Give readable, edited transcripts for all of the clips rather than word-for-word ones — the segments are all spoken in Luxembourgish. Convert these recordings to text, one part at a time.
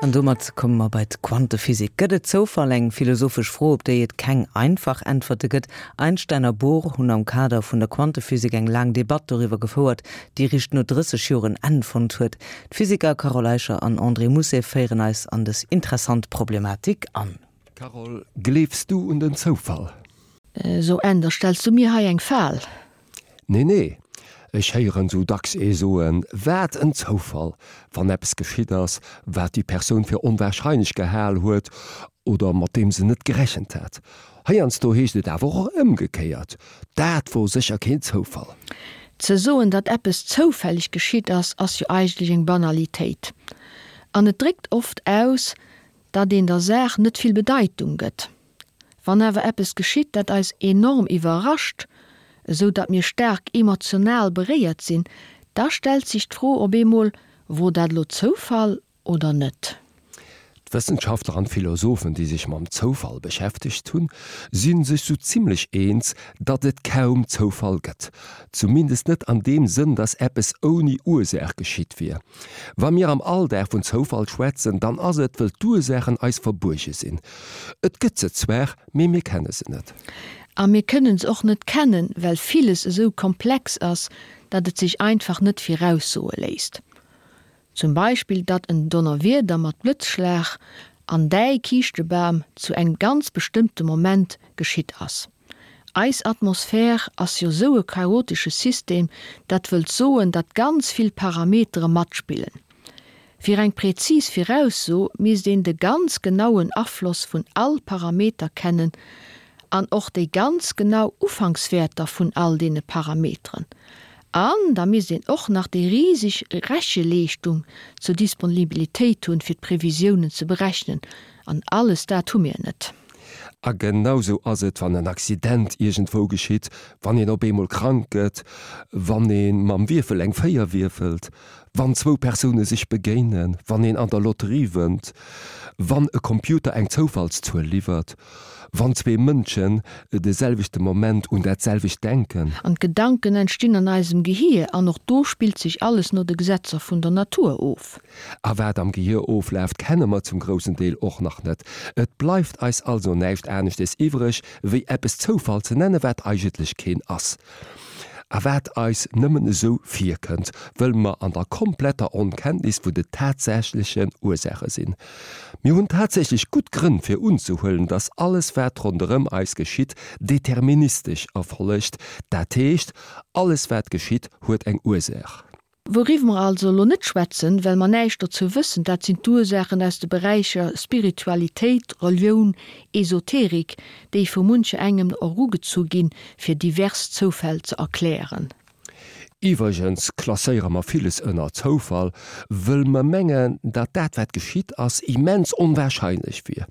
An domat komme mer bei d'Quantephysik. Gëtt et Zoufall? Eng philosophesch Fro, op déi et keng einfach Äntwerte gëtt. Einstein a Bohr hunn am Kader vun der Quantephysik eng laang Debatt doriwwer gefouert, déi eréischt no 30 Joer en Enn fonnt huet. D'Physiker Carole Eicher an André Mousset féieren eis an dës interessant Problematik an. Carole, gleefs du un den Zoufall? So Änder, stells du mir hei eng Fal? Nee, nee, ech héieren sou dacks ee soen, wat en Zoufall, wann eppes geschitt ass, wat déi Persoun fir onwahrscheinlech gehal huet oder mat deem se net gerechent hat. Heiansdo heescht et awer och ëmgekéiert, dat wor sécher keen Zoufall. Ze soen, datt eppes zoufälleg geschitt ass, ass jo eigentlech eng Banalitéit. An et dréckt oft aus, datt een der Saach net vill Bedeitung gëtt. Wann awer eppes geschitt, dat eis enorm iwwerrascht, esou datt mir staark emotional beréiert sinn, da stellt sech d'Fro op eemol, Wor dat elo Zoufall oder net? D'Wëssenschaftler an d'Philosophen, déi sech mam Zoufall beschäftegt hunn, si sech sou zimmlech eens, datt et kaum Zoufall gëtt. Zumindest net an deem Sënn, datt eppes ouni Ursaach geschitt wier. Wa mir am Alldag vun Zoufall schwätzen, dann ass et, wëll d'Ursaachen eis verbuerge sinn. Et gëtt se zwar, mee mir kenne se net. A mir kënnen se och net kennen, well villes esou komplex ass, datt et sech einfach net viraussoe léisst. Zum Beispill, datt en Donnerwieder mat Blëtzschlag an däi Kiischtebam zu engem ganz bestëmmte Moment geschitt ass. Eis Atmosphär ass jo sou e chaotesche System, dat wëllt soen, datt ganz vill Parametere matspillen. Fir eng präzis Virausso misst een de ganz genauen Afloss vun all Parameter kennen an och déi ganz genau Ufankswäerter vun all deene Parameteren. An da misst een och nach déi riseg Recheleeschtung zur Disponibilitéit hunn, fir d'Previsiounen ze berechnen. An alles dat hu mir net. A genau sou ass et, wann en Accident iergendwou geschitt, wann een op eemol krank gëtt, wann ee mam Wierfel eng 4 wierfelt, wann zwou Persoune sech begéinen, wann een an der Lotterie wënnt, wann e Computer eng Zoufallszuel liwwert, wann zwee Mënschen de selwechte Moment un dat selwecht denken. An d'Gedanken entstinn an eisem Gehier an och do spillt sech alles no de Gesetzer vun der Natur of. A wat am Gehier oflaaft, kenne mer zum groussen Deel och nach net. Et bleift eis also näischt aneschtes iwwreg, wéi eppes Zoufall ze nennen, wat eigentlech keen ass. A wat eis nëmmen esou virkënnt, wëll mer an der kompletter Onkenntnis vun de tatsächlechen Ursaache sinn. Mir hunn tatsächlech gutt Grënn fir unzehuelen, dass alles wat ronderëm eis geschitt, deterministesch erfollegt, dat heescht, alles wat geschitt, huet eng Ursaach. Wouriwwer mer also elo net schwätzen, well mer näischt dozou wëssen, dat sinn d'Ursaachen aus de Beräicher Spiritualitéit, Relioun, Esoterik, déi vu muncher engem erugezu ginn, fir divers Zoufäll ze erklären. Iwwregens klasséiere mer villes ënner Zoufall, wëll mer mengen, datt dat wat geschitt ass, immens onwahrscheinlech wier.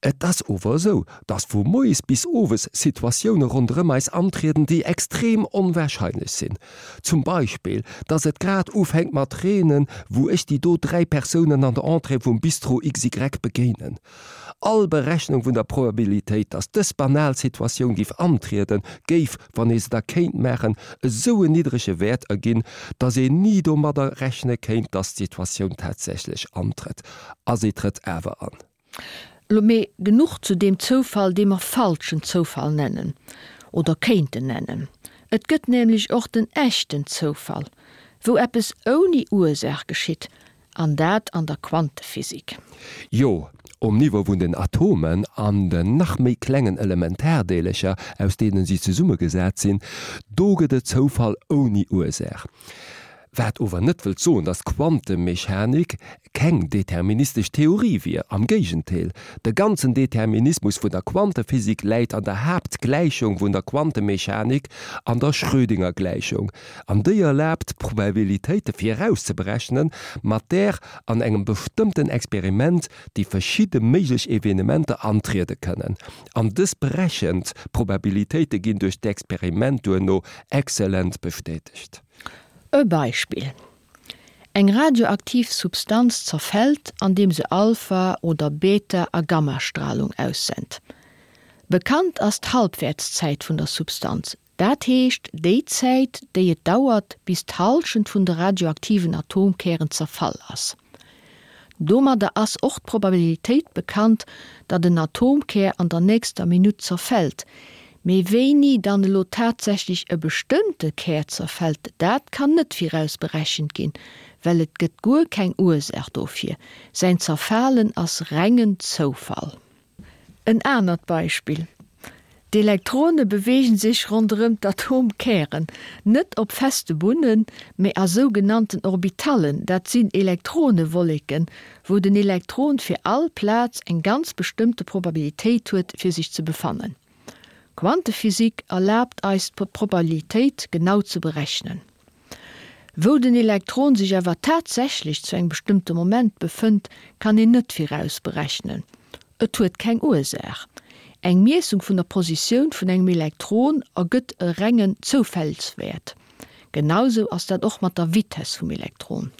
Et ass ower esou, datt vu moies bis owes Situatioune ronderëm eis antrieden, déi extrem onwahrscheinlech sinn. Zum Beispill, datt et grad ufänkt mat reenen, wou ech déi do 3 Persounen an der Entrée vum Bistro XY begéinen. All Berechnung vun der Probabilitéit, datt dës banal Situatioun géif antrieden, géif, wann ee se da kéint maachen, esou en niddrege Wäert erginn, datt een ni domadder rechne kéint, datt d'Situatioun tatsächlech antrëtt. A se trëtt awer an. Lo mee genuch zu deem Zoufall, dee mer falschen Zoufall nennen oder kéinten nennen. Et gëtt nämlech och den echten Zoufall, wou eppes ouni Ursaach geschitt, an dat an der Quantephysik. Jo, um Niveau vun den Atomen an den nach méi klengen Elementardeelercher, aus deenen si zesummegesat sinn, do gëtt et Zoufall ouni Ursaach. Wat ower net wëllt soen, datt d'Quantemechanik keng deterministesch Theorie wier. Am Géigentéel, de ganzen Determinismus vun der Quantephysik läit an der Haaptgläichung vun der Quantemechanik, an der Schrödingergläichung. An déi erlaabt, Probabilitéite virauszeberechnen, mat där an engem bestëmmten Experiment déi verschidde méiglech Evenementer antriede kënnen. An dës berechent Probabilitéite ginn duerch d'Experiment duerno exzellent bestätegt. E Beispill, Eng radioaktiv Substanz zerfält, andeem se Alpha oder Beta a Gammastralung aussent. Bekannt ass d'Halbwäertszäit vun der Substanz, dat heescht déi Zäit, déi et dauert, bis d'Hallschent vun de radioaktiven Atomkären zerfall ass. Domadder ass och d'Probabilitéit bekannt, datt en Atomkär an der nächster Minutt zerfält. Mee wéini dann elo tatsächlech e bestëmmte Kär zerfält, dat kann net viraus berechent ginn, well et gëtt guer keng Ursaach dofir. Säin Zerfalen ass rengen Zoufall. En anert Beispill, D'Elektrone beweegen sech ronderëm d'Atomkären, net op feste Bunnen, mee a sougenannten Orbitallen, dat sinn Elektronewolleken, wou den Elektron fir all Plaz eng ganz bestëmmte Probabilitéit huet, fir sech ze befannen. D'Quantephysik erlaabt eis d'Probabilitéit genau ze berechnen. Wou den Elektron sech awer tatsächlech zu engem bestëmmte Moment befënnt, kann een net viraus berechnen. Et huet keng Ursaach. Eng Miessung vun der Positioun vun engem Elektron ergëtt e rengen Zoufällswäert. Genausou ass dat och mat der Vitess vum Elektron.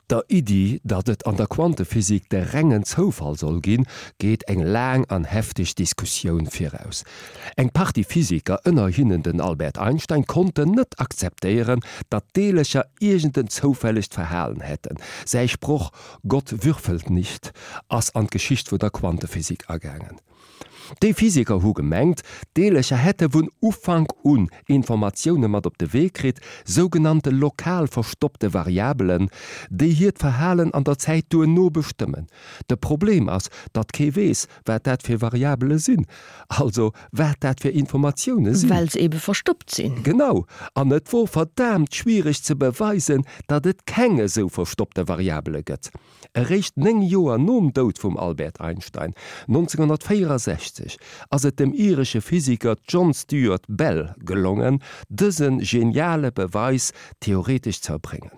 Der Iddi, datt et an der Quantephysik de rengen Zoufall soll ginn, geet eng laang an hefteg Diskussioun viraus. Eng Partie Physiker, ënner hinnen den Albert Einstein, konnten net akzeptéieren, datt d'Deelercher iergend en zoufällegt Verhalen hätten. Säi Sproch Gott würfelt nicht ass an d'Geschicht vun der Quantephysik agaangen. Déi Physiker hu gemengt, d'Deelercher hätte vun Ufank un Informatioune mat op de Wee kritt, sougenannte lokal verstoppte Variabelen, déi hiert Verhalen an der Zäit duerno bestëmmen. De Problem ass, datt kee weess, wat dat fir Variabele sinn, also wat dat fir Informatioune sinn. Well se ebe verstoppt sinn. Genau. An et wor verdaamt schwiereg ze beweisen, datt et keng esou verstoppte Variabele gëtt. Eréischt 9 Joer nom Doud vum Albert Einstein, 1964, ass et dem iresche Physiker John Stuart Bell gelongen, dëse geniale Beweis theoretesch ze erbréngen.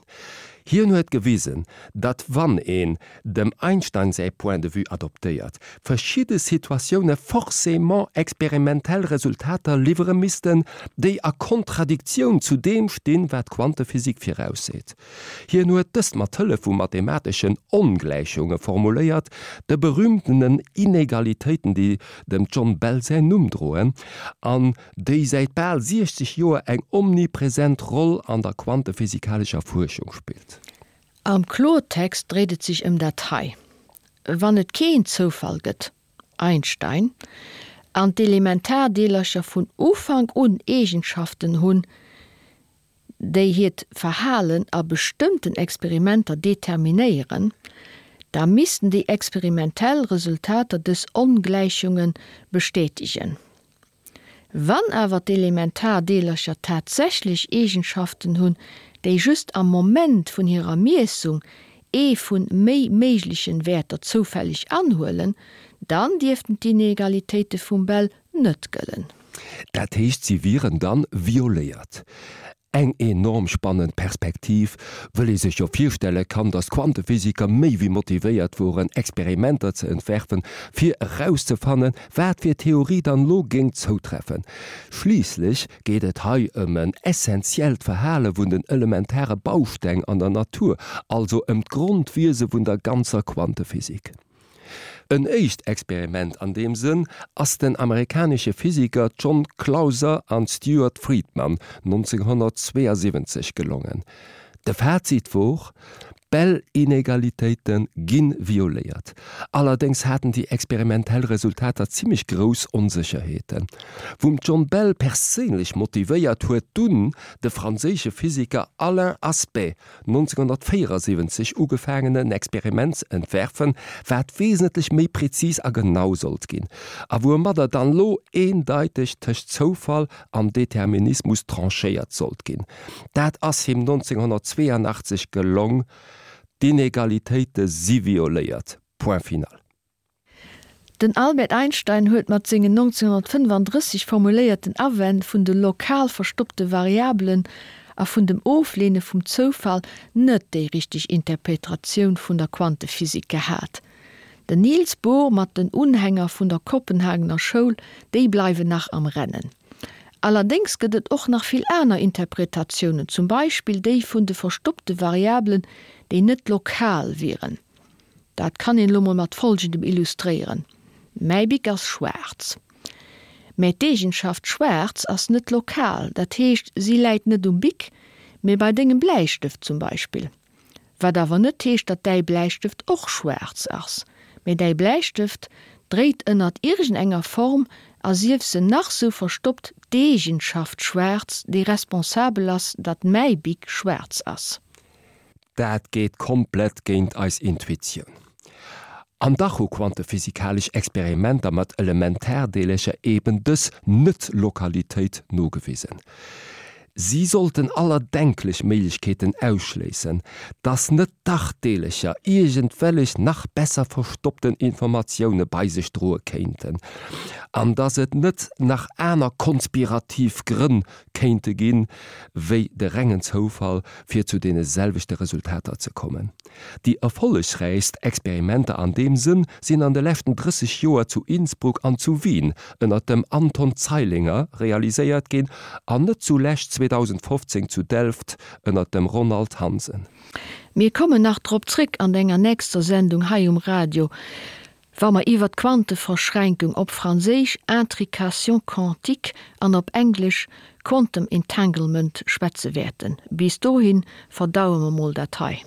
Hien huet gewisen, datt wann een dem Einstein säi Point de vue adoptéiert, verschidde Situatioune forcément experimentell Resultater liwwere missten, déi a Kontradiktioun zu deem stinn, wat d'Quantephysik virausseet. Hien huet dëst mat Hëllef vu mathemateschen Ongläichunge formuléiert, de berühmtenen Inegalitéiten, déi dem John Bell säin Numm droen an déi säit bal 60 Joer eng omnipresent Roll an der quantephysikalescher Fuerschung spillt. Am Klortext dréit et sech ëm dat hei, Wann et keen Zoufall gëtt, Einstein, an d'Elementardeelercher vun Ufank un Eegenschaften hunn, déi hiert Verhalen a bestëmmten Experimenter determinéieren, da missten déi experimentell Resultater dës Ongläichunge bestätegen. Wann awer d'Elementardeelercher tatsächlech Eegenschaften hunn, déi just am Moment vun hirer Miessung ee vun méi méiglechen Wäerter zoufälleg anhuelen, dann dierften d'Inegalitéite vum Bell net gëllen. Dat heescht, si wieren dann violéiert. Eng enorm spannend Perspektiv, wëll ee sech jo virstelle kann, datt d'Quantephysiker méi wéi motivéiert woren, Experimenter ze entwerfen, fir erauszefannen, wat fir Theorie dann elo géing zoutreffen. Schliisslech geet et hei ëm en essentiellt Verhale vun den elementare Bausteng an der Natur, also ëm d'Grondwiese vun der ganzer Quantephysik. En éischt Experiment an deem Sënn ass den amerikanesche Physiker John Clauser an Stuart Friedman 1972 gelongen. De Fazit wor, D'Bell-Inegalitéite gi violéiert. Allerdéngs haten déi experimentell Resultater zimmlech grouss Onsécherheeten. Vum John Bell perséinlech motivéiert huet dunn de franséische Physiker Alain Aspect 1974 ugefaangen en Experiment ze entwerfen, wat wesentlech méi präzis a genau sollt ginn, a woumadder dann lo eendeiteg tëscht Zoufall an Determinismus tranchéiert sollt ginn. Dat ass him 1982 gelong, d'Inegalitéite si violéiert, point final. Den Albert Einstein huet mat sengen 1935 formuléierten Awänn vun de lokal verstoppte Variabelen a vun dem Ofleene vum Zoufall net déi richteg Interpetratioun vun der Quantephysik gehat. Den Niels Bohr mat den Unhänger vun der Kopenhagener Schoul, déi bleiwen nach am Rennen. Allerdéngs gëtt et och nach vill aner Interpretatiounen, zum Beispill déi vun de verstoppte Variabelen, déi net lokal wieren. Dat kann een elo mol mat folgendem illustréieren, Mäi Bic ass schwaarz. Mä d'Eegenschaft schwaarz ass net lokal, dat heescht si läit net um Bic, mee bei dengem Bläistëft zum Beispill. Wat awer net heescht, datt däi Bläistëft och schwaarz ass. Mee däi Bläistëft dréit ënnert iergendenger Form, a sief se nach sou verstoppt, d'Eegenschaft schwaarz, déi responsabel ass, datt mäi Bic schwaarz ass. Dat geet komplett géint eis Intuitioun. An dach hu quantephysikalesch Experimenter mat Elementardeelercher eben dës Net-Lokalitéit nogewisen. Si sollten aller denklech Méiglechkeeten ausschléissen, dass net dach Deelercher iergendwellech nach besser verstoppten Informatioune bei sech droe kéinten, an dass et net nach aner konspirativ Grënn kéinte ginn, wéi de rengen Zoufall, fir zu deene selwechte Resultater ze kommen. Déi erfollegräichst Experimenter an deem Sënn sinn an de leschten 30 Joer zu Innsbruck an zu Wien ënner dem Anton Zeilinger realiséiert ginn an net zulescht 2015 zu Delft ënner dem Ronald Hansen. Mir kommen nach drop zréck an enger nächster Sendung hei um Radio. Wa mer iwwer d'Quanteverschränkung, op Franséisch intrication quantique an op Englesch quantum entanglement, schwätze wäerten. Bis dohi verdaue mer mol dat hei.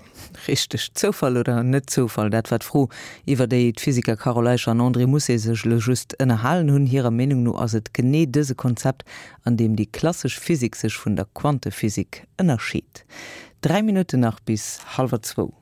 Richteg. Zoufall oder net Zoufall, dat war d'Fro, iwwer déi d'Physiker Carole Eicher an André Mousset sech elo just ënnerhalen hunn. Hirer Meenung no ass et genee dëse Konzept, an deem déi klassesch Physik sech vun der Quantephysik ënnerscheet. 3 Minutten nach bis hallwer zwou.